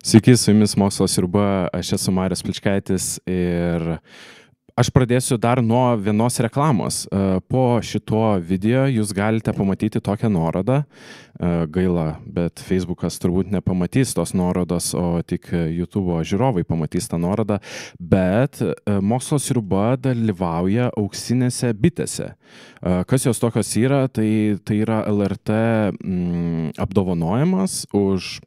Sveiki, su jumis Mokslo sriuba, aš esu Marius Pličkaitis ir aš pradėsiu dar nuo vienos reklamos. Po šituo video jūs galite pamatyti tokią nuorodą. Gaila, bet Facebookas turbūt nepamatys tos nuorodos, o tik YouTube žiūrovai pamatys tą nuorodą. Bet Mokslo sriuba dalyvauja auksinėse bitėse. Kas jos tokios yra? Tai yra LRT apdovanojimas už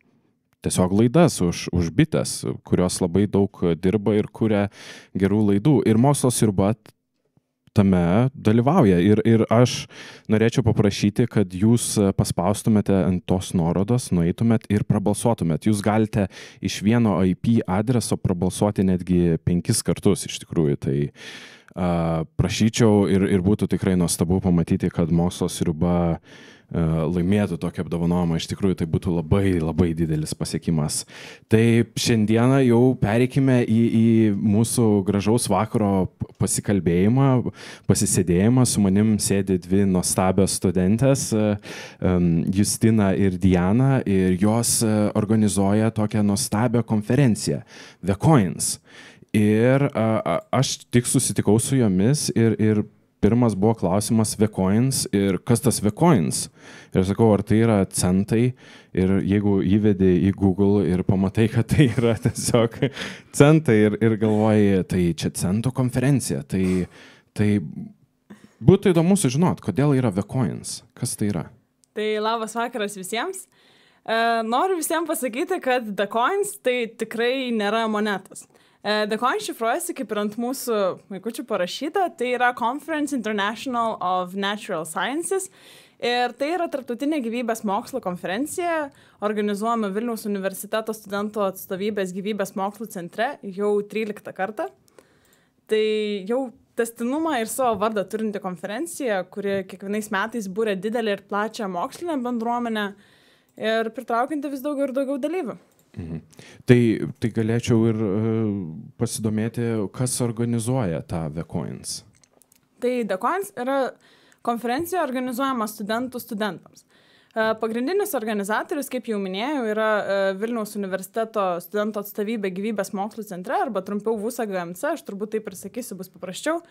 tiesiog laidas, už bites, kurios labai daug dirba ir kuria gerų laidų. Ir Mokslo sriuba tame dalyvauja. Ir aš norėčiau paprašyti, kad jūs paspaustumėte ant tos nuorodos, nueitumėt ir prabalsuotumėt. Jūs galite iš vieno IP adreso prabalsuoti netgi 5 kartus iš tikrųjų. Tai prašyčiau ir būtų tikrai nuostabu pamatyti, kad Mokslo sriuba laimėtų tokį apdovanojimą. Iš tikrųjų, tai būtų labai, labai didelis pasiekimas. Tai šiandieną jau pereikime į mūsų gražaus vakaro pasikalbėjimą, pasisėdėjimą. Su manim sėdi dvi nuostabios studentės, Justina ir Diana, ir jos organizuoja tokią nuostabią konferenciją, The Coins. Ir aš tik susitikau su jomis ir pirmas buvo klausimas The Coins ir kas tas The Coins? Ir aš sakau, ar tai yra centai? Ir jeigu įvedi į Google ir pamatai, kad tai yra tiesiog centai ir galvoji, tai čia centų konferencija. Tai būtų įdomu sužinot, kodėl yra The Coins. Kas tai yra? Tai labas vakaras visiems. Noriu visiems pasakyti, kad The Coins tai tikrai nėra monetos. The Coin šifruojasi, kaip ir ant mūsų vaikučių parašyta, tai yra Conference International of Natural Sciences ir tai yra tarptautinė gyvybės mokslo konferencija, organizuojama Vilniaus universiteto studentų atstovybės gyvybės mokslų centre jau 13 kartą. Tai jau tęstinumą ir savo vardą turinti konferencija, kuri kiekvienais metais būrė didelį ir plačią mokslinę bendruomenę ir pritraukianti vis daugiau ir daugiau dalyvių. Mhm. Tai galėčiau ir pasidomėti, kas organizuoja tą The Coins. Tai The Coins yra konferencija organizuojama studentams. Pagrindinis organizatorius, kaip jau minėjau, yra Vilniaus universiteto studentų atstovybė gyvybės mokslų centre, arba trumpiau VUSA-GMC, aš turbūt taip ir sakysiu, bus paprasčiau.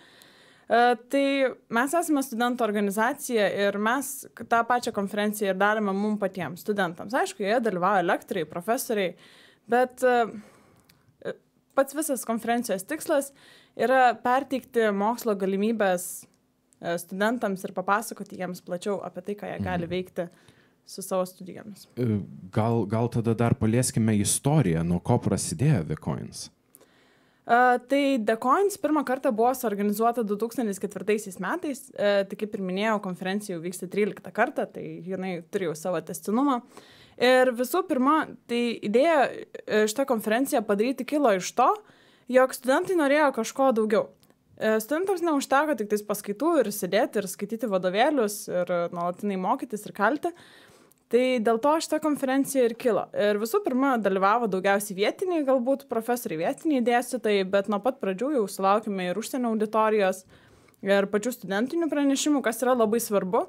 Tai mes esame studentų organizacija ir mes tą pačią konferenciją ir darome mums patiems studentams. Aišku, joje dalyvauja lektoriai, profesoriai, bet pats visas konferencijos tikslas yra perteikti mokslo galimybės studentams ir papasakoti jiems plačiau apie tai, ką jie gali veikti su savo studijomis. Gal tada dar palieskime istoriją, nuo ko prasidėjo The Coins? Tai The Coins pirmą kartą buvo suorganizuota 2004 metais, tai kaip ir minėjau, konferencija jau vyksta 13 kartą, tai jinai turi jau savo tęstinumą. Ir visų pirma, tai idėja šitą konferenciją padaryti kilo iš to, jog studentai norėjo kažko daugiau. Studentams neužteko tik tais paskaitų ir sėdėti ir skaityti vadovėlius ir nuolatinai mokytis ir kalti. Tai dėl to šitą konferenciją ir kilo. Ir visų pirma, dalyvavo daugiausiai vietiniai, galbūt profesoriai vietiniai dėstytojai, bet nuo pat pradžių jau sulaukime ir užsienio auditorijos ir pačių studentinių pranešimų, kas yra labai svarbu,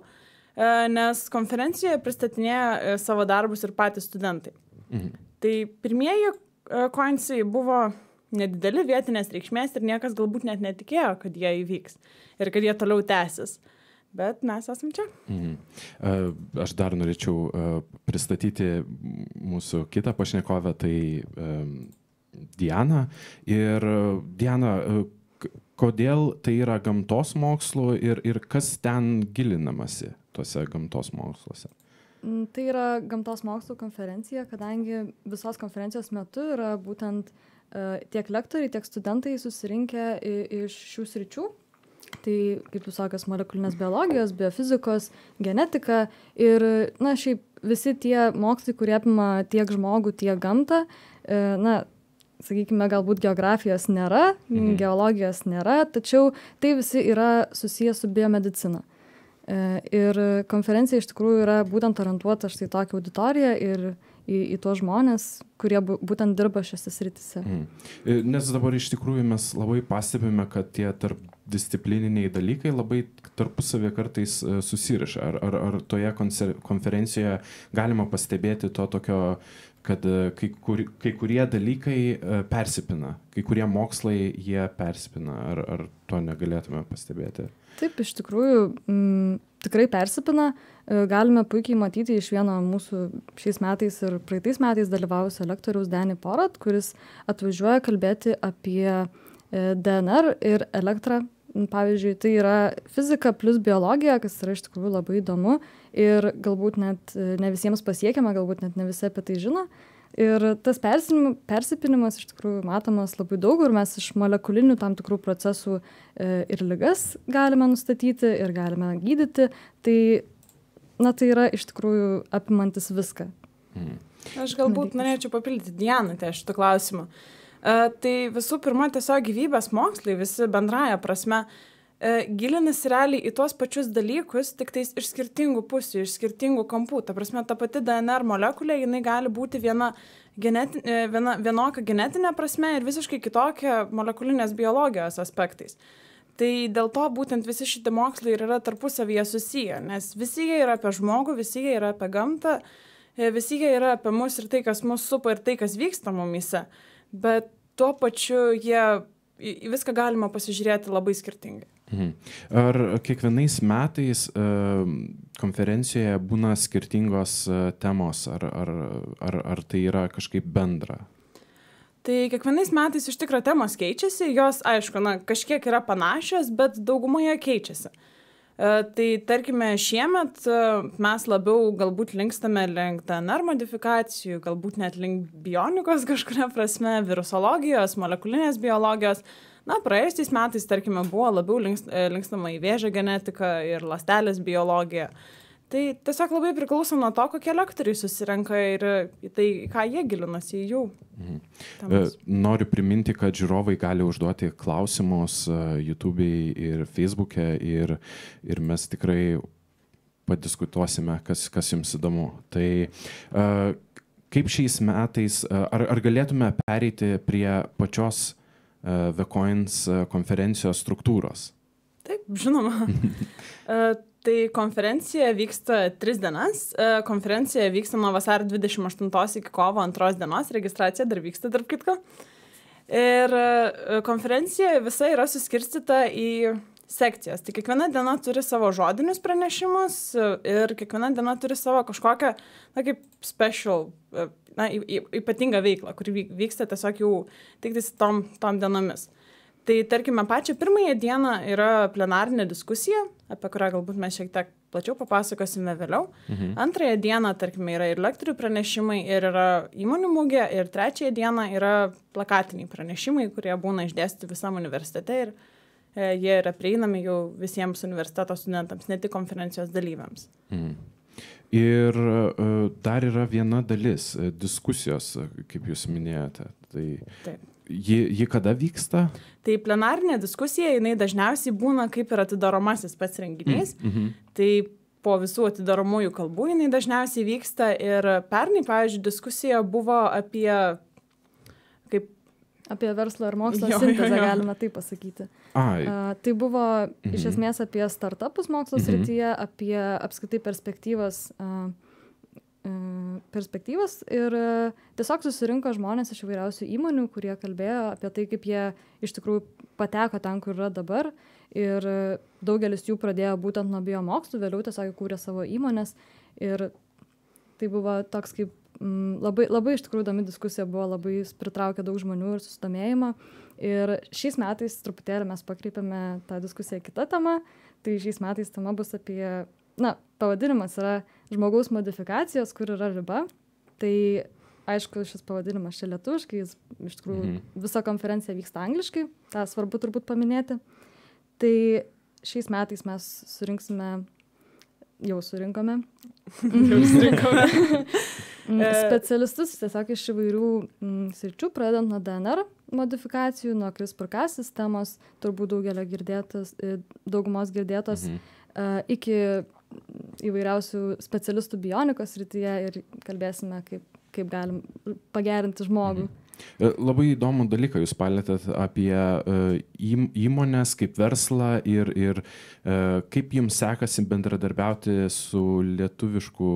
nes konferencijoje pristatinėja savo darbus ir patys studentai. Mhm. Tai pirmieji coinsai buvo nedideli vietinės reikšmės ir niekas galbūt net netikėjo, kad jie įvyks ir kad jie toliau tęsis. Bet mes esam čia. Aš dar norėčiau pristatyti mūsų kitą pašnekovę, tai Diana. Ir Diana, kodėl tai yra gamtos mokslų ir kas ten gilinamasi tuose gamtos moksluose? Tai yra gamtos mokslų konferencija, kadangi visos konferencijos metu yra būtent tiek lektoriai, tiek studentai susirinkę iš šių sričių. Tai, kaip jūs sakės, molekulinės biologijos, biofizikos, genetika ir, šiaip visi tie mokslai, kurie apima tiek žmogų, tiek gamtą, sakykime, galbūt geografijos nėra, geologijos nėra, tačiau tai visi yra susijęs su biomedicina. Ir konferencija iš tikrųjų yra būtent orientuota štai tokią auditoriją ir į tuos žmonės, kurie būtent dirba šiose srityse. Nes dabar iš tikrųjų mes labai pastebime, kad tie tarpdisciplininiai dalykai labai tarpusavį kartais susiriša. Ar toje konferencijoje galima pastebėti to tokio, kad kai kurie dalykai persipina, kai kurie mokslai jie persipina, ar to negalėtume pastebėti? Taip, iš tikrųjų, tikrai persipina. Galime puikiai matyti iš vieno mūsų šiais metais ir praeitais metais dalyvavusio lektoriaus Danny Porat, kuris atvažiuoja kalbėti apie DNR ir elektrą. Pavyzdžiui, tai yra fizika plus biologija, kas yra iš tikrųjų labai įdomu ir galbūt net ne visiems pasiekiama, galbūt net ne visi apie tai žino. Ir tas persipinimas iš tikrųjų matomas labai daug ir mes iš molekulinių tam tikrų procesų ir ligas galime nustatyti ir galime gydyti. Tai, tai yra iš tikrųjų apimantis viską. Aš galbūt norėčiau papildyti Dianą šitą klausimą. Tai visų pirma, tiesiog gyvybės mokslai visi bendraja prasme gilinasi realiai į tuos pačius dalykus, tik tais iš skirtingų pusių, iš skirtingų kampų. Ta prasme, ta pati DNR molekulė, jinai gali būti vienokia genetinė prasme ir visiškai kitokia molekulinės biologijos aspektais. Tai dėl to būtent visi šitie mokslai ir yra tarpusavyje susiję, nes visi jie yra apie žmogų, visi jie yra apie gamtą, visi jie yra apie mus ir tai, kas mus supa ir tai, kas vyksta mumyse. Bet tuo pačiu viską galima pasižiūrėti labai skirtingai. Ar kiekvienais metais konferencijoje būna skirtingos temos, ar tai yra kažkaip bendra? Tai kiekvienais metais iš tikro temos keičiasi, jos, aišku, kažkiek yra panašios, bet daugumoje keičiasi. Tai tarkime, šiemet mes labiau galbūt linkstame link DNR modifikacijų, galbūt net link bionikos kažkuria prasme, virusologijos, molekulinės biologijos. Praėjusiais metais, tarkime, buvo labiau linkstama į vėžio genetiką ir ląstelės biologiją. Tai tiesiog labai priklauso nuo to, kokie lektoriai susirenka ir į tai, ką jie gilinasi į jų. Noriu priminti, kad žiūrovai gali užduoti klausimus YouTube'ai ir Facebook'e ir mes tikrai padiskutuosime, kas jums įdomu. Tai kaip šiais metais, ar galėtume pereiti prie pačios VCoins konferencijos struktūros? Taip, žinoma. Tai konferencija vyksta 3 dienas. Konferencija vyksta nuo vasario 28 iki kovo 2 dienos. Registracija dar vyksta, tarp kitko. Ir konferencija visa yra suskirstyta į sekcijas. Tai kiekviena diena turi savo žodinius pranešimus ir kiekviena diena turi savo kažkokią, kaip special, ypatingą veiklą, kuri vyksta tiesiog jau tik tom dienomis. Tai tarkime, pačią pirmąją dieną yra plenarinė diskusija, apie kurią galbūt mes šiek tiek plačiau papasakosime vėliau. Antrąją dieną, tarkime, yra ir lektorių pranešimai, ir yra įmonių mugė, ir trečiąją dieną yra plakatiniai pranešimai, kurie būna išdėstyti visam universitete ir jie yra prieinami jau visiems universiteto studentams, ne tik konferencijos dalyviams. Ir dar yra viena dalis diskusijos, kaip jūs minėjote. Tai ji kada vyksta? Tai plenarinė diskusija, jinai dažniausiai būna kaip ir atidaromasis pats renginys. Tai po visų atidaromųjų kalbų jinai dažniausiai vyksta ir pernai, pavyzdžiui, diskusija buvo apie verslo ir mokslo sintezę, galima taip pasakyti. Tai buvo iš esmės apie startupus mokslo srityje, apie apskritai perspektyvas ir tiesiog susirinko žmonės iš įvairiausių įmonių, kurie kalbėjo apie tai, kaip jie iš tikrųjų pateko ten, kur yra dabar ir daugelis jų pradėjo būtent nuo biomokslų, vėliau tiesiog kūrė savo įmonės ir tai buvo toks kaip labai iš tikrųjų įdomi diskusija, buvo labai pritraukė daug žmonių ir susidomėjimą ir šiais metais truputėlį mes pakreipėme tą diskusiją kitą temą, tai šiais metais tema bus apie pavadinimas yra žmogaus modifikacijos, kur yra riba. Tai aišku, šis pavadinimas čia lietuviškai, jis iš tikrųjų visa konferencija vyksta angliškai, tą svarbu turbūt paminėti. Tai šiais metais mes surinkome specialistus tiesiog iš įvairių sričių, pradedant nuo DNR modifikacijų, nuo CRISPR-Cas sistemos, turbūt daugumos girdėtos, iki įvairiausių specialistų bionikos srityje ir kalbėsime, kaip kaip galim pagerinti žmogų. Labai įdomų dalyką jūs palėtėt apie įmonės kaip verslą ir kaip jums sekasi bendradarbiauti su lietuvišku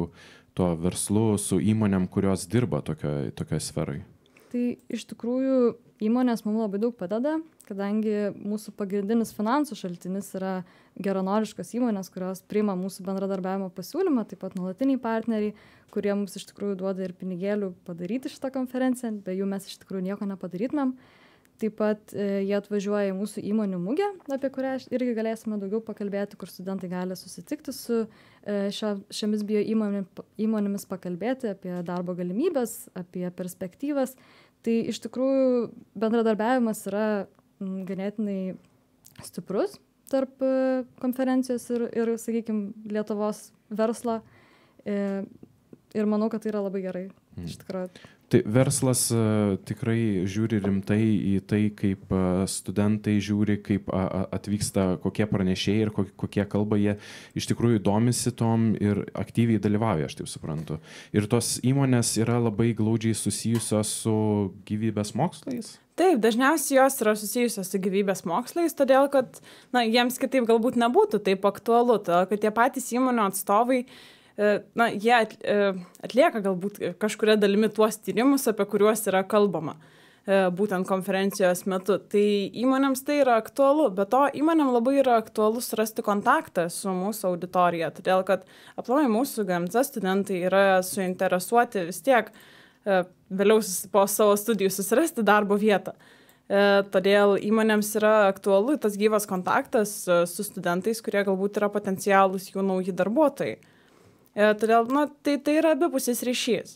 to verslu, su įmonėm, kurios dirba tokioje sferoje. Tai iš tikrųjų įmonės mums labai daug padeda, kadangi mūsų pagrindinis finansų šaltinis yra geranoriškos įmonės, kurios priima mūsų bendradarbiavimo pasiūlymą, taip pat nuolatiniai partneriai, kurie mums iš tikrųjų duoda ir pinigėlių padaryti šitą konferenciją, be jų mes iš tikrųjų nieko nepadarytumėm. Taip pat jie atvažiuoja į mūsų įmonių mugę, apie kurią irgi galėsime daugiau pakalbėti, kur studentai gali susitikti su šiomis bio įmonėmis, pakalbėti apie darbo galimybės, apie perspektyvas. Tai iš tikrųjų bendradarbiavimas yra ganėtinai stiprus tarp konferencijos ir sakykime, Lietuvos verslo. Ir manau, kad tai yra labai gerai. Iš tikrųjų. Tai verslas tikrai žiūri rimtai į tai, kaip studentai žiūri, kaip atvyksta, kokie pranešėjai ir kokie kalba, jie iš tikrųjų domisi tom ir aktyviai dalyvauja, aš taip suprantu. Ir tos įmonės yra labai glaudžiai susijusios su gyvybės mokslais? Taip, dažniausiai jos yra susijusios su gyvybės mokslais, todėl kad jiems kitaip galbūt nebūtų taip aktualu, todėl kad tie patys įmonių atstovai jie atlieka galbūt kažkuria dalimi tuos tyrimus, apie kuriuos yra kalbama būtent konferencijos metu. Tai įmonėms tai yra aktualu, bet to įmonėm labai yra aktualu surasti kontaktą su mūsų auditorija, todėl kad aplamai mūsų GMC studentai yra suinteresuoti vis tiek vėliau po savo studijų susirasti darbo vietą. Todėl įmonėms yra aktualu tas gyvas kontaktas su studentais, kurie galbūt yra potencialūs jų nauji darbuotojai. Todėl tai yra abipusis ryšys.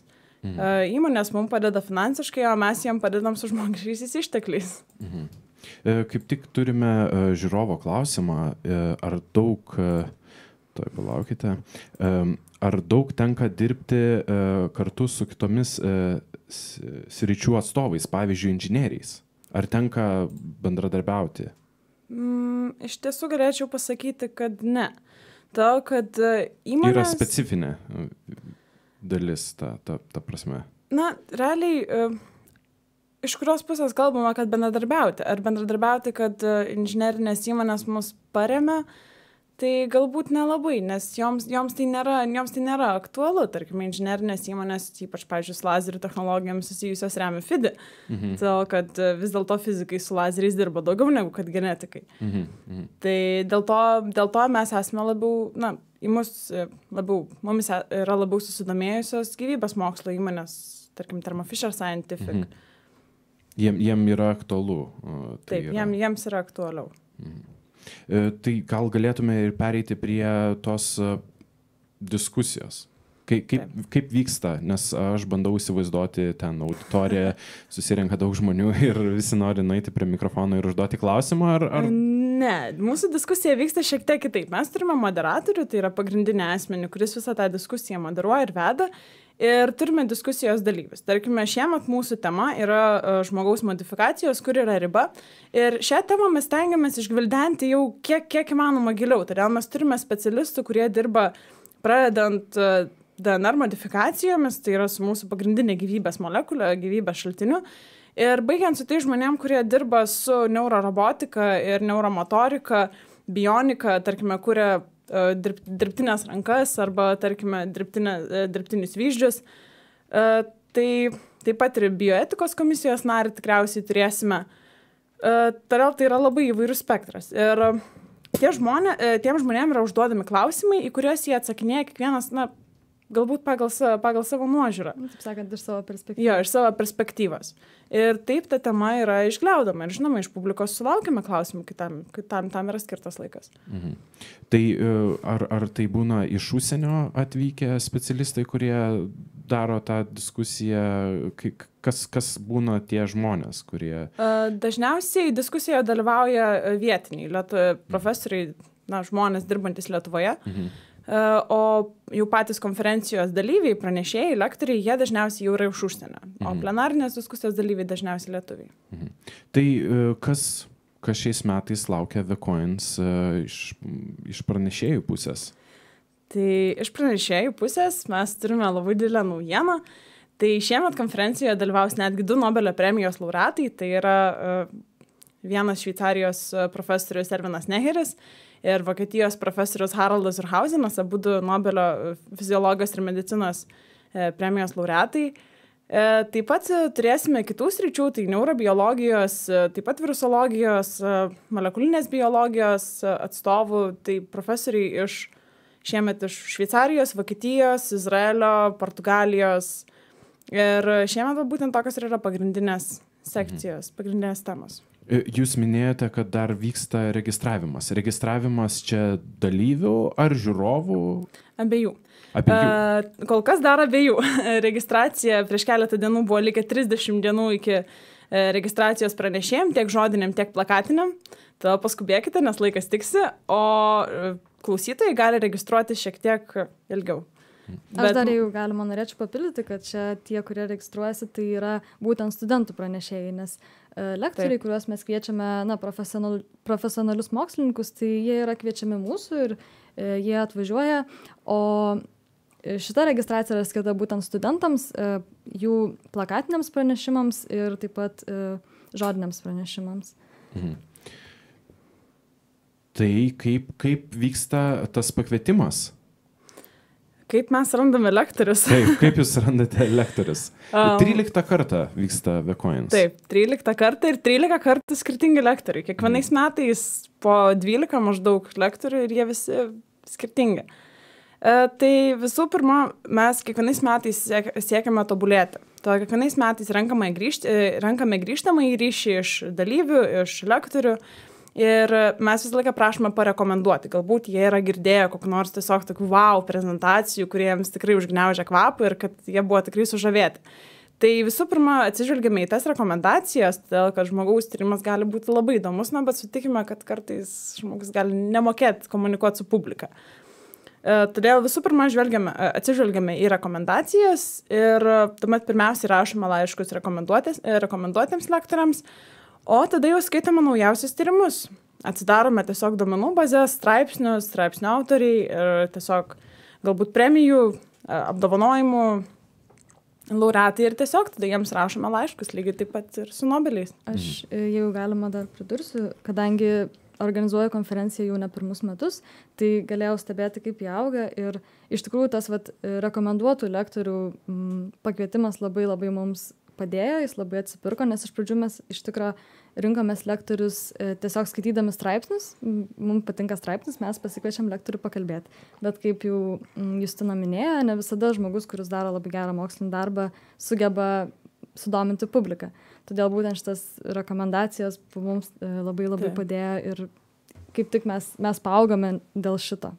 Įmonės mums padeda finansiškai, o mes jiem padedam su žmogiškaisiais ištekliais. Kaip tik turime žiūrovo klausimą, ar daug, ar daug tenka dirbti kartu su kitomis sričių atstovais, pavyzdžiui, inžinieriais? Ar tenka bendradarbiauti? Iš tiesų galėčiau pasakyti, kad ne. To, kad įmonės... Yra specifinė dalis, ta prasme. Realiai, iš kurios pusės kalbama, kad bendradarbiauti. Ar bendradarbiauti, kad inžinerinės įmonės mus paremia, tai galbūt nelabai, nes joms tai nėra aktualu. Tarkim, inžinerinės įmonės, ypač, pavyzdžiui, su lazerių technologijomis susijusios remia FIDI, todėl kad vis dėlto fizikai su lazeriais dirba daugiau negu kad genetikai. Tai dėl to mes esame labiau, mumis yra labiau susidomėjusios gyvybės mokslo įmonės, tarkim, Thermo Fisher Scientific. Jiem yra aktualu. Taip, jiems yra aktualiau. Tai gal galėtume ir pereiti prie tos diskusijos. Kaip vyksta, nes aš bandau įsivaizduoti ten auditoriją, susirenka daug žmonių ir visi nori nueiti prie mikrofono ir užduoti klausimą, ar... Ne, mūsų diskusija vyksta šiek tiek kitaip. Mes turime moderatorių, tai yra pagrindinė asmenį, kuris visą tą diskusiją moderuoja ir veda. Ir turime diskusijos dalyvius. Tarkime, šiemet mūsų tema yra žmogaus modifikacijos, kur yra riba. Ir šią temą mes tengiamės išgvildenti jau kiek įmanoma giliau. Todėl mes turime specialistų, kurie dirba pradedant DNR modifikacijomis, tai yra su mūsų pagrindinė gyvybės molekulė, gyvybės šaltiniu. Ir baigiant su tai žmonėm, kurie dirba su neurorobotika ir neuromotorika, bionika, tarkime, kuria dirbtinės rankas arba, tarkime, dirbtinius vyzdžius. Tai taip pat ir bioetikos komisijos narį tikriausiai turėsime. Todėl tai yra labai įvairus spektras. Ir tiem žmonėm yra užduodami klausimai, į kuriuos jie atsakinėja kiekvienas, galbūt pagal savo nuožiūrą. Taip sakant, iš savo perspektyvos. Jo, iš savo perspektyvos. Ir taip ta tema yra išgliaudama. Ir žinoma, iš publikos sulaukime klausimų, tam yra skirtas laikas. Tai ar tai būna iš užsienio atvykę specialistai, kurie daro tą diskusiją? Kas būna tie žmonės, kurie... Dažniausiai diskusijoje dalyvauja vietiniai profesoriai, žmonės dirbantis Lietuvoje. O jau patys konferencijos dalyviai, pranešėjai, lektoriai, jie dažniausiai jau yra iš užsienio, o plenarinės diskusijos dalyviai dažniausiai lietuviai. Tai kas šiais metais laukia VCoins iš pranešėjų pusės? Tai iš pranešėjų pusės mes turime labai didelę naujieną. Tai šiemet konferencijoje dalyvaus netgi 2 Nobelio premijos laureatai, tai yra vienas Šveicarijos profesorius Ervinas Neheris ir Vokietijos profesorius Haraldas Urhausenas, abu Nobelio fiziologijos ir medicinos premijos laureatai. Taip pat turėsime kitų sričių, tai neurobiologijos, taip pat virusologijos, molekulinės biologijos atstovų, tai profesoriai šiemet iš Šveicarijos, Vokietijos, Izraelio, Portugalijos. Ir šiemet būtent tokios yra pagrindinės sekcijos, pagrindinės temos. Jūs minėjote, kad dar vyksta registravimas. Registravimas čia dalyvių ar žiūrovų? Abiejų. Kol kas dar abiejų. Registracija prieš keletą dienų buvo likę 30 dienų iki registracijos pranešėjim, tiek žodiniam, tiek plakatiniam. Tada paskubėkite, nes laikas tiksi, o klausytojai gali registruoti šiek tiek ilgiau. Aš dar jau galima norėčiau papildyti, kad čia tie, kurie registruojasi, tai yra būtent studentų pranešėjai, nes lektoriai, kuriuos mes kviečiame profesionalius mokslininkus, tai jie yra kviečiami mūsų ir jie atvažiuoja, o šita registracija yra skirta būtent studentams, jų plakatiniams pranešimams ir taip pat žodiniams pranešimams. Tai kaip vyksta tas pakvietimas? Kaip mes randame lektorius? Kaip jūs randate lektorius? 13 kartą vyksta VCoins. Taip, 13 kartą ir 13 kartų skirtingi lektoriai. Kiekvienais metais po 12 maždaug lektorių ir jie visi skirtingi. Tai visų pirma, mes kiekvienais metais siekiame tobulėti. To kiekvienais metais renkame grįžtamą į ryšį iš dalyvių, iš lektorių. Ir mes visą laiką prašome parekomenduoti. Galbūt jie yra girdėję kokių nors tiesiog tokių wow prezentacijų, kurie jiems tikrai užgniaužia kvapą ir kad jie buvo tikrai sužavėti. Tai visų pirma, atsižvelgiame į tas rekomendacijas, todėl kad žmogaus tyrimas gali būti labai įdomus, bet sutikime, kad kartais žmogus gali nemokėti komunikuoti su publika. Todėl visų pirma atsižvelgiame į rekomendacijas ir tuomet pirmiausiai rašome laiškus rekomenduotiems lektoriams, o tada jau skaitome naujausius tyrimus. Atsidarome tiesiog duomenų bazės, straipsnių autoriai ir tiesiog galbūt premijų, apdovanojimų laureatai ir tiesiog tada jiems rašome laiškus, lygiai taip pat ir su Nobeliais. Aš jau galima dar pridursiu, kadangi organizuoju konferenciją jau ne pirmus metus, tai galėjau stebėti, kaip jie auga ir iš tikrųjų tas rekomenduotų lektorių pakvietimas labai labai mums padėjo, jis labai atsipirko, nes iš pradžių mes iš tikro rinkomės lektorius tiesiog skaitydami straipsnius, mums patinka straipsnis, mes pasikviečiam lektorių pakalbėti. Bet kaip jau Justina minėjo, ne visada žmogus, kuris daro labai gerą mokslinį darbą, sugeba sudominti publiką. Todėl būtent šitas rekomendacijos mums labai padėjo ir kaip tik mes paaugome dėl šito.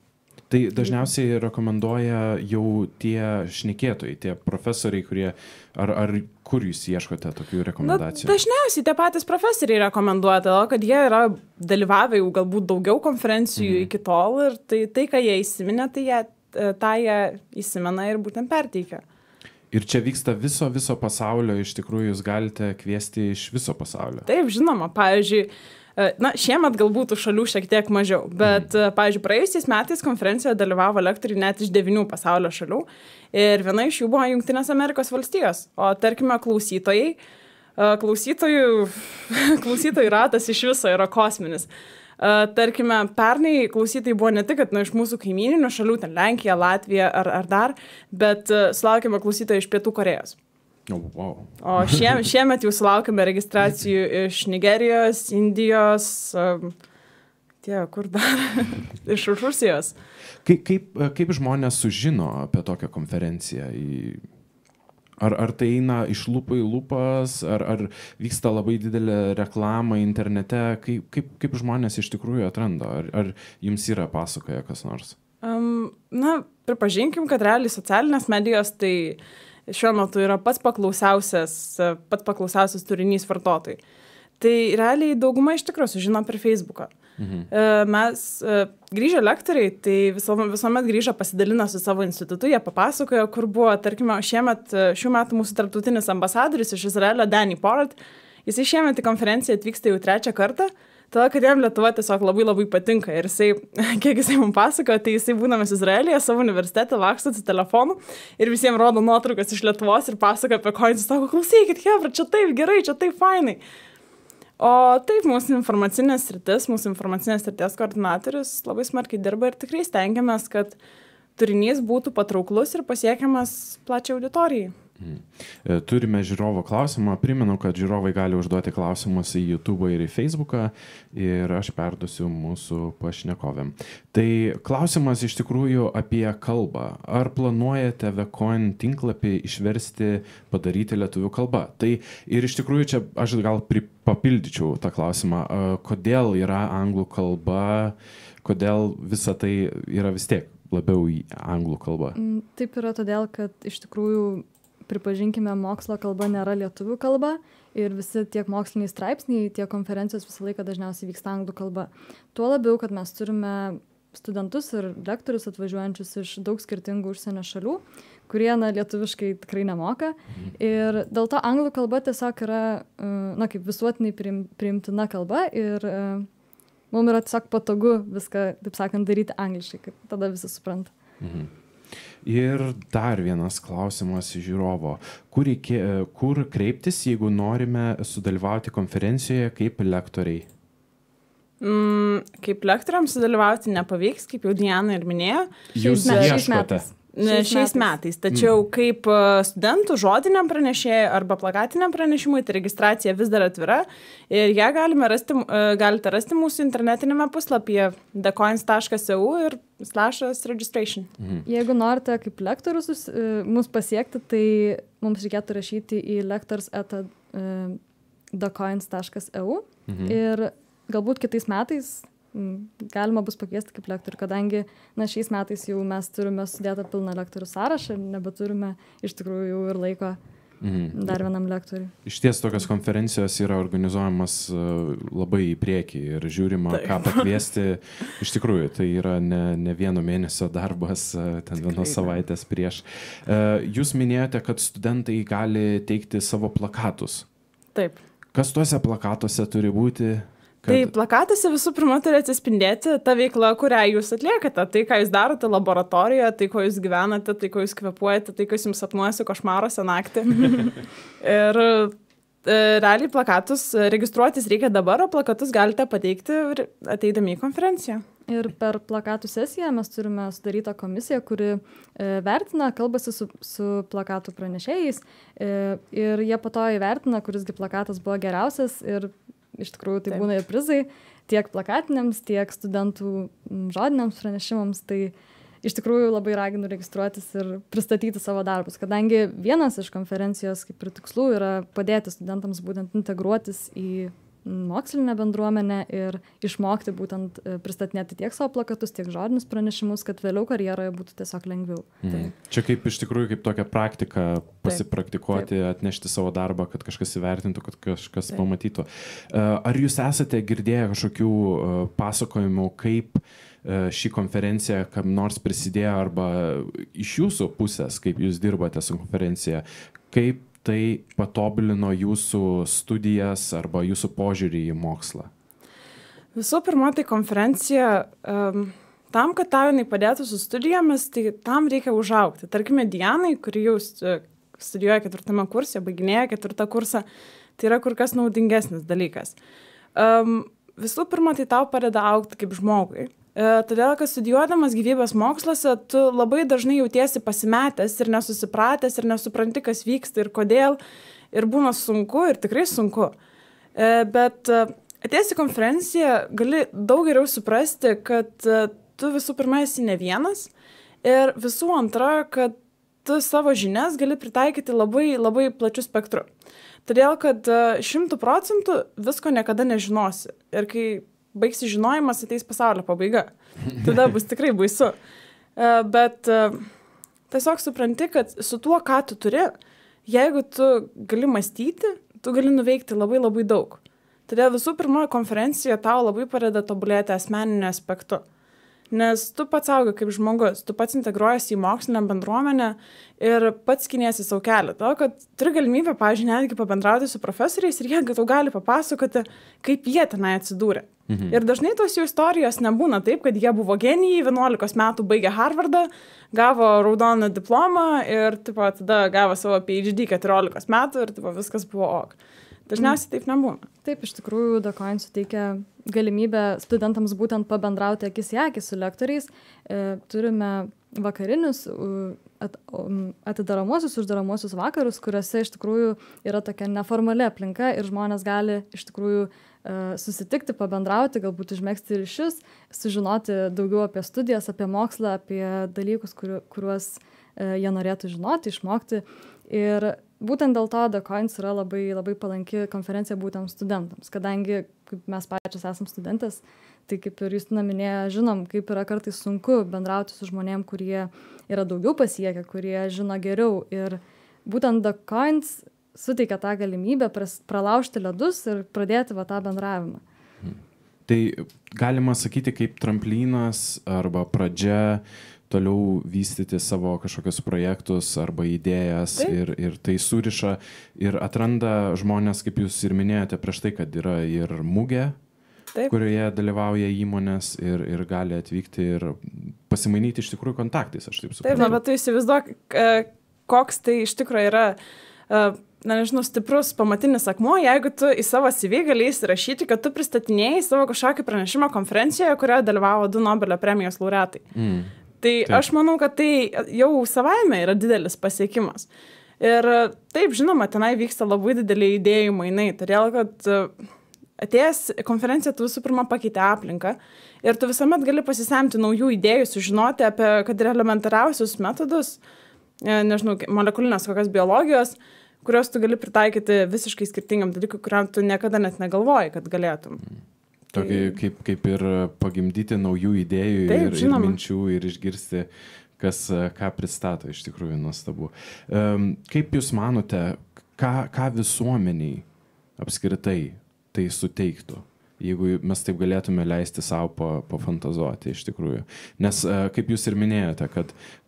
Tai dažniausiai rekomenduoja jau tie šnekėtojai, tie profesoriai, kurie, ar kur jūs ieškote tokių rekomendacijų? Dažniausiai tie patys profesoriai rekomenduoja, todėl kad jie yra dalyvavę jau galbūt daugiau konferencijų iki tol ir tai ką jie įsiminė, tai jie įsimena ir būtent perteikia. Ir čia vyksta viso pasaulio, iš tikrųjų jūs galite kviesti iš viso pasaulio. Taip, žinoma, pavyzdžiui, šiemet galbūt šalių šiek tiek mažiau, bet, pavyzdžiui, praėjusiais metais konferencijoje dalyvavo lektoriai net iš 9 pasaulio šalių ir viena iš jų buvo Jungtinės Amerikos valstijos, o tarkime klausytojų ratas iš viso yra kosminis. Tarkime, pernai klausytojai buvo ne tik, kad iš mūsų kaimyninių šalių, ten Lenkija, Latvija ar dar, bet sulaukėme klausytojų iš Pietų Korėjos. Oh, wow. O šiemet jau sulaukėme registracijų iš Nigerijos, Indijos, kur dar, iš Rusijos. Kaip žmonės sužino apie tokią konferenciją? Ar tai eina iš lūpų į lūpas, ar vyksta labai didelė reklama internete? Kaip žmonės iš tikrųjų atranda? Ar jums yra pasakoja kas nors? Pripažinkim, kad realiai socialinės medijos tai šiuo metu yra pats paklausiausias turinys vartotojai. Tai realiai dauguma iš tikrųjų sužino per Facebooką. Mes grįžę lektoriai, tai visuomet grįžę pasidalina su savo institutu, jie papasakojo, kur buvo, tarkime, šių metų mūsų tarptautinis ambasadorius iš Izraelio, Danny Porat. Jis šiemet į konferenciją atvyksta jau 3 kartą. Todėl, kad jam Lietuva tiesiog labai labai patinka. Ir jisai, kiek jisai man pasakojo, tai jisai būdamas Izraelyje savo universitete laksto su telefonu ir visiems rodo nuotraukas iš Lietuvos ir pasakoja apie coins. Jis sako, klausykit, hebra, čia taip gerai, čia taip fainai. O taip, mūsų informacinės srities koordinatorius labai smarkiai dirba ir tikrai stengiamės, kad turinys būtų patrauklus ir pasiekiamas plačiai auditorijai. Turime žiūrovo klausimą. Primenu, kad žiūrovai gali užduoti klausimus į YouTube ir į Facebooką ir aš perduosiu mūsų pašnekovėm. Tai klausimas iš tikrųjų apie kalbą. Ar planuojate Vecoin tinklapį išversti, padaryti lietuvių kalba? Tai ir iš tikrųjų čia aš gal papildyčiau tą klausimą. Kodėl yra anglų kalba, kodėl visa tai yra vis tiek labiau į anglų kalbą? Taip yra todėl, kad iš tikrųjų pripažinkime, mokslo kalba nėra lietuvių kalba ir visi tiek moksliniai straipsniai, tiek konferencijos visą laiką dažniausiai vyksta anglų kalba. Tuo labiau, kad mes turime studentus ir lektorius atvažiuojančius iš daug skirtingų užsienio šalių, kurie lietuviškai tikrai nemoka. Ir dėl to anglų kalba tiesiog yra kaip visuotinai priimtina kalba ir mums yra tiesiog patogu viską, taip sakant, daryti angliškai, kaip tada visi supranta. Ir dar vienas klausimas iš žiūrovo. Kur kreiptis, jeigu norime sudalyvauti konferencijoje kaip lektoriai? Kaip lektoriams sudalyvauti nepavyks, kaip jau Diana ir minėjo. Jūs ieškote? Šiais metais. Tačiau kaip studentų žodiniam pranešėjui arba plakatiniam pranešimui, tai registracija vis dar atvira ir ją galite rasti mūsų internetinėme puslapyje thecoins.eu ir /registration. Jeigu norite kaip lektorius mus pasiekti, tai mums reikėtų rašyti į lectors@thecoins.eu ir galbūt kitais metais galima bus pakviesti kaip lektorių, kadangi šiais metais jau mes turime sudėtą pilną lektorių sąrašą ir nebeturime iš tikrųjų jau ir laiko dar vienam lektoriui. Iš ties tokios konferencijos yra organizuojamas labai į priekį ir žiūrima, ką pakviesti. Iš tikrųjų, tai yra ne vieno mėnesio darbas, ten vienos savaitės prieš. Jūs minėjote, kad studentai gali teikti savo plakatus. Taip. Kas tuose plakatuose turi būti? Tai plakatuose visų pirma turi atsispindėti ta veikla, kurią jūs atliekate. Tai, ką jūs darote laboratorijoje, tai, ko jūs gyvenate, tai, ko jūs kvėpuojate, tai, kas jums sapnuojasi košmaruose naktį. Ir realiai plakatus registruotis reikia dabar, o plakatus galite pateikti ateidami į konferenciją. Ir per plakatų sesiją mes turime sudarytą komisiją, kuri vertina, kalbasi su plakatų pranešėjais ir jie po to įvertina, kurisgi plakatas buvo geriausias ir iš tikrųjų tai būna ir prizai tiek plakatiniams, tiek studentų žodiniams pranešimams. Tai iš tikrųjų labai raginu registruotis ir pristatyti savo darbus, kadangi vienas iš konferencijos kaip ir tikslų yra padėti studentams būtent integruotis į mokslinę bendruomenę ir išmokti būtent pristatinėti tiek savo plakatus, tiek žodinius pranešimus, kad vėliau karjeroje būtų tiesiog lengviau. Čia kaip iš tikrųjų kaip tokia praktika pasipraktikuoti, atnešti savo darbą, kad kažkas įvertintų, kad kažkas pamatytų. Ar jūs esate girdėję kažkokių pasakojimų, kaip ši konferencija kam nors prisidėjo arba iš jūsų pusės, kaip jūs dirbate su konferencija, kaip tai patobulino jūsų studijas arba jūsų požiūrį į mokslą? Visų pirma, tai konferencija, tam, kad tau jinai padėtų su studijomis, tai tam reikia užaugti. Tarkime, Dianai, kuri jau studijuoja 4 kurse, baiginėja 4 kursą, tai yra kur kas naudingesnis dalykas. Visų pirma, tai tau padeda augti kaip žmogui. Todėl, kad studijuodamas gyvybės moksluose, tu labai dažnai jautiesi pasimetęs ir nesusipratęs ir nesupranti, kas vyksta ir kodėl. Ir būna sunku ir tikrai sunku. Bet atėjęs į konferenciją gali daug geriau suprasti, kad tu visų pirma esi ne vienas ir visų antra, kad tu savo žinias gali pritaikyti labai, labai plačiu spektru. Todėl, kad 100% visko niekada nežinosi. Ir kai baigsi žinojimas, ateis pasaulio pabaiga. Tada bus tikrai baisu. Bet tiesiog supranti, kad su tuo, ką tu turi, jeigu tu gali mąstyti, tu gali nuveikti labai labai daug. Todėl visų pirma, konferencija tau labai padeda tobulėti asmeniniu aspektu. Nes tu pats augi kaip žmogus, tu pats integruojasi į mokslinę bendruomenę ir pats skiniesi savo kelią. To, kad turi galimybę, pavyzdžiui, netgi pabendrauti su profesoriais ir jie tau gali papasakoti, kaip jie tenai atsidūrė. Ir dažnai tos jų istorijos nebūna taip, kad jie buvo genijai, 11 metų baigė Harvardą, gavo raudoną diplomą ir tipo, tada gavo savo PhD 14 metų ir tipo, viskas buvo ok. Dažniausiai taip nebūna. Taip, iš tikrųjų, DACOIN suteikia galimybę studentams būtent pabendrauti akis į akį su lektoriais. Turime vakarinius, atidaromuosius, uždaromuosius vakarus, kuriuose iš tikrųjų yra tokia neformali aplinka ir žmonės gali iš tikrųjų susitikti, pabendrauti, galbūt užmegzti ryšius, sužinoti daugiau apie studijas, apie mokslą, apie dalykus, kuriuos jie norėtų žinoti, išmokti. Ir būtent dėl to DACOIN yra labai, labai palanki konferencija būtent studentams, kadangi kaip mes pačios esam studentės, tai kaip ir Justina minėjo, žinom, kaip yra kartais sunku bendrauti su žmonėm, kurie yra daugiau pasiekę, kurie žino geriau. Ir būtent DACOIN suteikia tą galimybę pralaužti ledus ir pradėti tą bendravimą. Tai galima sakyti kaip tramplynas arba pradžia toliau vystyti savo kažkokius projektus arba idėjas ir tai suriša ir atranda žmonės, kaip jūs ir minėjote prieš tai, kad yra ir mugė, kurioje dalyvauja įmonės ir gali atvykti ir pasimainyti iš tikrųjų kontaktais, aš taip suprantu. Taip, bet tu įsivaizduok, koks tai iš tikrųjų yra, nežinau, stiprus pamatinis akmuo, jeigu tu į savo CV gali įsirašyti, kad tu pristatinėjai savo kažkokį pranešimą konferencijoje, kurioje dalyvavo 2 Nobelio premijos laureatai. Tai aš manau, kad tai jau savaime yra didelis pasiekimas. Ir taip, žinoma, tenai vyksta labai dideliai idėjų mainai, todėl kad atėjęs konferenciją tu visų pirma pakeitė aplinką ir tu visuomet gali pasisemti naujų idėjų, sužinoti apie, kad ir elementariausius metodus, nežinau, molekulinės kokios biologijos, kurios tu gali pritaikyti visiškai skirtingam dalykui, kuriam tu niekada net negalvoji, kad galėtum. Tokį kaip ir pagimdyti naujų idėjų ir minčių ir išgirsti, ką pristato, iš tikrųjų nuostabu. Kaip jūs manote, ką visuomeniai apskritai tai suteiktų, jeigu mes taip galėtume leisti savo pafantazuoti iš tikrųjų? Nes kaip jūs ir minėjote,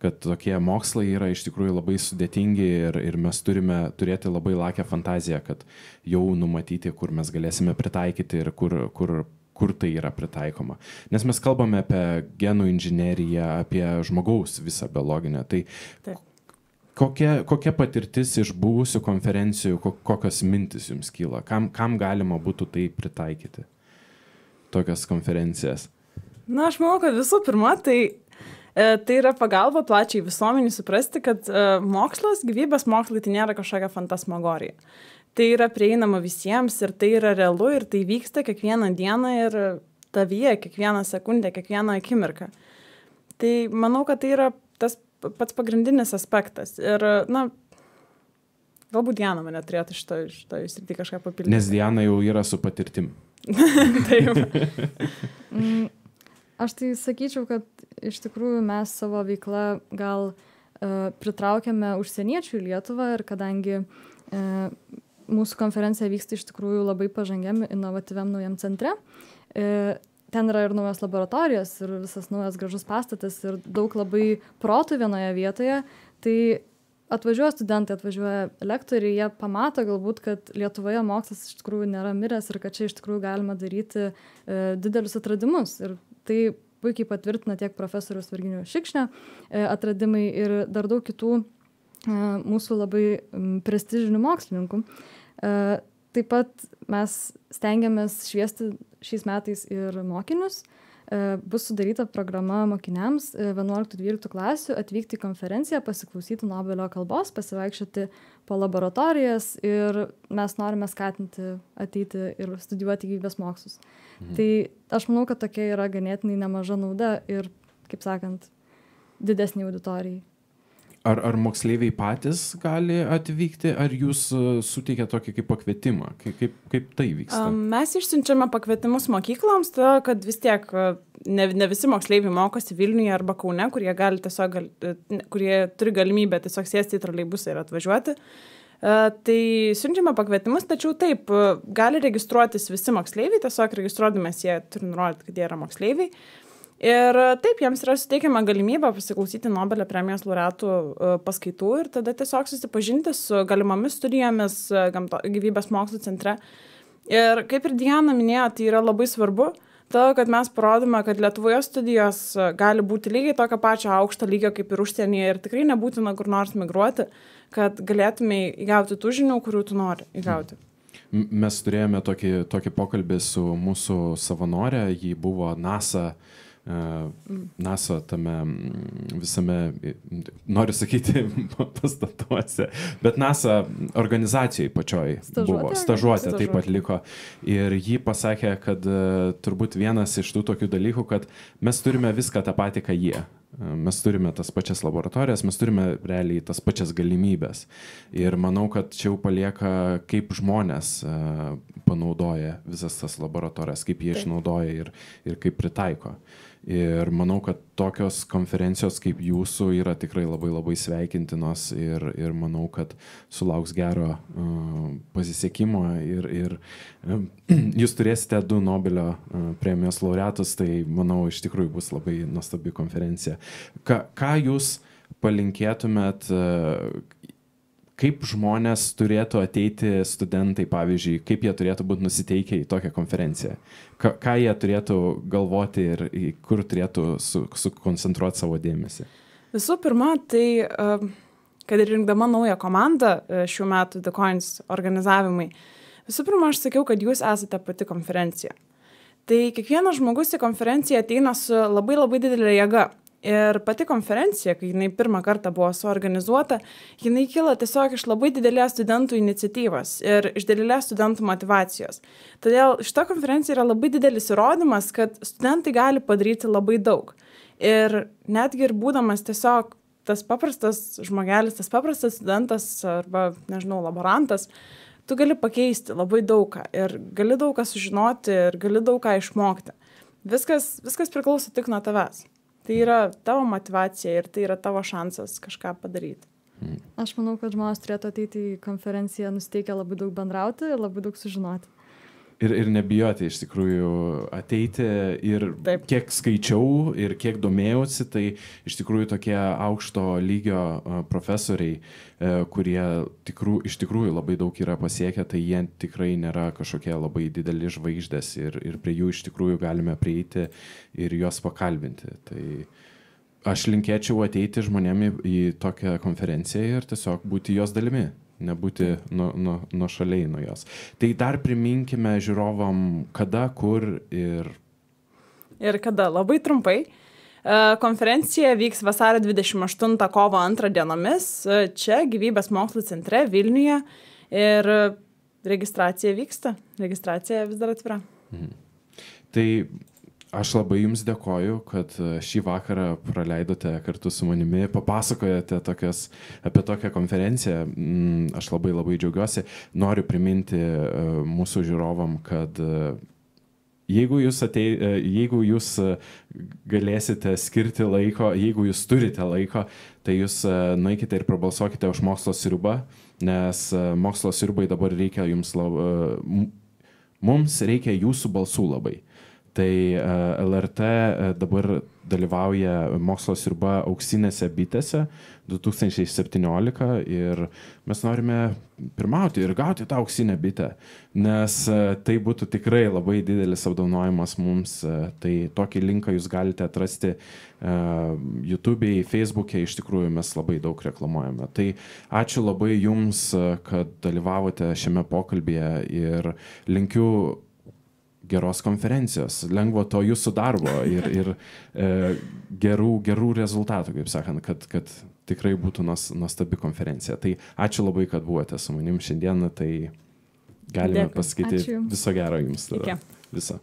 kad tokie mokslai yra iš tikrųjų labai sudėtingi ir mes turime turėti labai lakią fantaziją, kad jau numatyti, kur mes galėsime pritaikyti ir kur tai yra pritaikoma. Nes mes kalbame apie genų inžineriją, apie žmogaus visą biologinę. Tai kokia patirtis iš buvusių konferencijų, kokios mintis jums kyla? Kam galima būtų tai pritaikyti? Tokias konferencijas. Na, aš manau, kad visų pirma, tai yra pagalba plačiai visuomeniai suprasti, kad mokslas, gyvybės mokslai tai nėra kažkokia fantasmagorija. Tai yra prieinama visiems ir tai yra realu ir tai vyksta kiekvieną dieną ir tavyje, kiekvieną sekundę, kiekvieną akimirką. Tai manau, kad tai yra tas pats pagrindinis aspektas. Ir, na, galbūt Diana mane turėtų šitoj srity kažką papildyti. Nes Diana jau yra su patirtim. Taip. Aš tai sakyčiau, kad iš tikrųjų mes savo veiklą gal pritraukiame užsieniečių į Lietuvą ir kadangi mūsų konferencija vyksta iš tikrųjų labai pažangiam, inovatyviam naujam centre. Ten yra ir naujos laboratorijos, ir visas naujas gražus pastatas, ir daug labai protų vienoje vietoje. Tai atvažiuoja studentai, atvažiuoja lektoriai, jie pamato galbūt, kad Lietuvoje mokslas iš tikrųjų nėra miręs ir kad čia iš tikrųjų galima daryti didelius atradimus. Ir tai puikiai patvirtina tiek profesorius Virginijus Šikšnio atradimai ir dar daug kitų mūsų labai prestižinių mokslininkų. Taip pat mes stengiamės šviesti šiais metais ir mokinius. Bus sudaryta programa mokiniams 11-12 klasių atvykti į konferenciją, pasiklausyti Nobelio kalbos, pasivaikščioti po laboratorijas ir mes norime skatinti ateiti ir studijuoti gyvybės mokslus. Tai aš manau, kad tokia yra ganėtinai nemaža nauda ir, kaip sakant, didesnė auditorijai. Ar moksleiviai patys gali atvykti, ar jūs suteikia tokį kaip pakvietimą? Kaip tai vyksta? Mes išsiunčiame pakvietimus mokykloms, to, kad vis tiek ne visi moksleiviai mokosi Vilniuje arba Kaune, kurie turi galimybę tiesiog sėsti į troleibusą ir atvažiuoti. Tai siunčiame pakvietimus, tačiau taip, gali registruotis visi moksleiviai, tiesiog registruodamės jie turi nurodyti, kad jie yra moksleiviai. Ir taip, jiems yra suteikiama galimybė pasiklausyti Nobelio premijos laureatų paskaitų ir tada tiesiog susipažinti su galimomis studijomis gyvybės mokslų centre. Ir kaip ir Diana minėjo, tai yra labai svarbu, todėl kad mes parodome, kad Lietuvoje studijos gali būti lygiai tokio pačio aukšto lygio kaip ir užsienyje ir tikrai nebūtina kur nors migruoti, kad galėtumai įgauti tų žinių, kurių tu nori įgauti. Mes turėjome tokį pokalbį su mūsų savanorė, ji buvo NASA tame visame, noriu sakyti, pastatuose, bet NASA organizacijai pačioj buvo, stažuotė taip atliko ir ji pasakė, kad turbūt vienas iš tų tokių dalykų, kad mes turime viską tą patį, ką jie. Mes turime tas pačias laboratorijas, mes turime realiai tas pačias galimybės. Ir manau, kad čia jau palieka, kaip žmonės panaudoja visas tas laboratorijas, kaip jie išnaudoja ir kaip pritaiko. Ir manau, kad tokios konferencijos kaip jūsų yra tikrai labai labai sveikintinos ir manau, kad sulauks gero pasisekimo ir jūs turėsite 2 Nobelio premijos laureatus, tai manau iš tikrųjų bus labai nuostabi konferencija. Ką jūs palinkėtumėt, kaip žmonės turėtų ateiti studentai, pavyzdžiui, kaip jie turėtų būti nusiteikę į tokią konferenciją? Ką jie turėtų galvoti ir kur turėtų sukoncentruoti savo dėmesį? Visų pirma, tai, kad ir rinkdama naują komandą šių metų The Coins organizavimai, visų pirma, aš sakiau, kad jūs esate pati konferencija. Tai kiekvienas žmogus į konferenciją ateina su labai labai didelė jėga. Ir pati konferencija, kai jinai pirmą kartą buvo suorganizuota, jinai kilo tiesiog iš labai didelės studentų iniciatyvos ir iš didelės studentų motivacijos. Todėl šita konferencija yra labai didelis įrodymas, kad studentai gali padaryti labai daug. Ir netgi ir būdamas tiesiog tas paprastas žmogelis, tas paprastas studentas arba, nežinau, laborantas, tu gali pakeisti labai daugą ir gali daug ką sužinoti ir gali daug ką išmokti. Viskas priklauso tik nuo tavęs. Tai yra tavo motivacija ir tai yra tavo šansas kažką padaryti. Aš manau, kad žmonės turėtų ateiti į konferenciją nusiteikę labai daug bendrauti ir labai daug sužinoti. Ir nebijoti iš tikrųjų ateiti ir Taip. Kiek skaičiau ir kiek domėjausi, tai iš tikrųjų tokie aukšto lygio profesoriai, kurie iš tikrųjų labai daug yra pasiekę, tai jie tikrai nėra kažkokie labai dideli žvaigždės ir prie jų iš tikrųjų galime prieiti ir juos pakalbinti. Tai aš linkėčiau ateiti žmonėm į tokią konferenciją ir tiesiog būti jos dalimi. Nebūti nuo šaliai nuo jos. Tai dar priminkime žiūrovam, kada, kur ir... Ir kada, labai trumpai. Konferencija vyks vasario 28 kovo 2 dienomis, čia Gyvybės mokslų centre Vilniuje ir registracija vyksta. Registracija vis dar atvira. Tai aš labai jums dėkoju, kad šį vakarą praleidote kartu su manimi, papasakojate apie tokią konferenciją. Aš labai labai džiaugiuosi. Noriu priminti mūsų žiūrovam, kad jeigu jūs galėsite skirti laiko, jeigu jūs turite laiko, tai jūs nueikite ir prabalsuokite už mokslo sriubą, nes mokslo sriubai dabar reikia mums reikia jūsų balsų labai. Tai LRT dabar dalyvauja mokslo sriuba auksinėse bitėse 2017 ir mes norime pirmauti ir gauti tą auksinę bitę, nes tai būtų tikrai labai didelis apdovanojimas mums. Tai tokį linką jūs galite atrasti YouTube'e, Facebook'e, iš tikrųjų mes labai daug reklamuojame. Tai ačiū labai jums, kad dalyvavote šiame pokalbyje ir linkiu geros konferencijos, lengvo to jūsų darbo ir gerų rezultatų, kaip sakant, kad tikrai būtų nuostabi konferencija. Tai ačiū labai, kad buvote su manim šiandieną, tai galime pasakyti viso gero jums. Viso.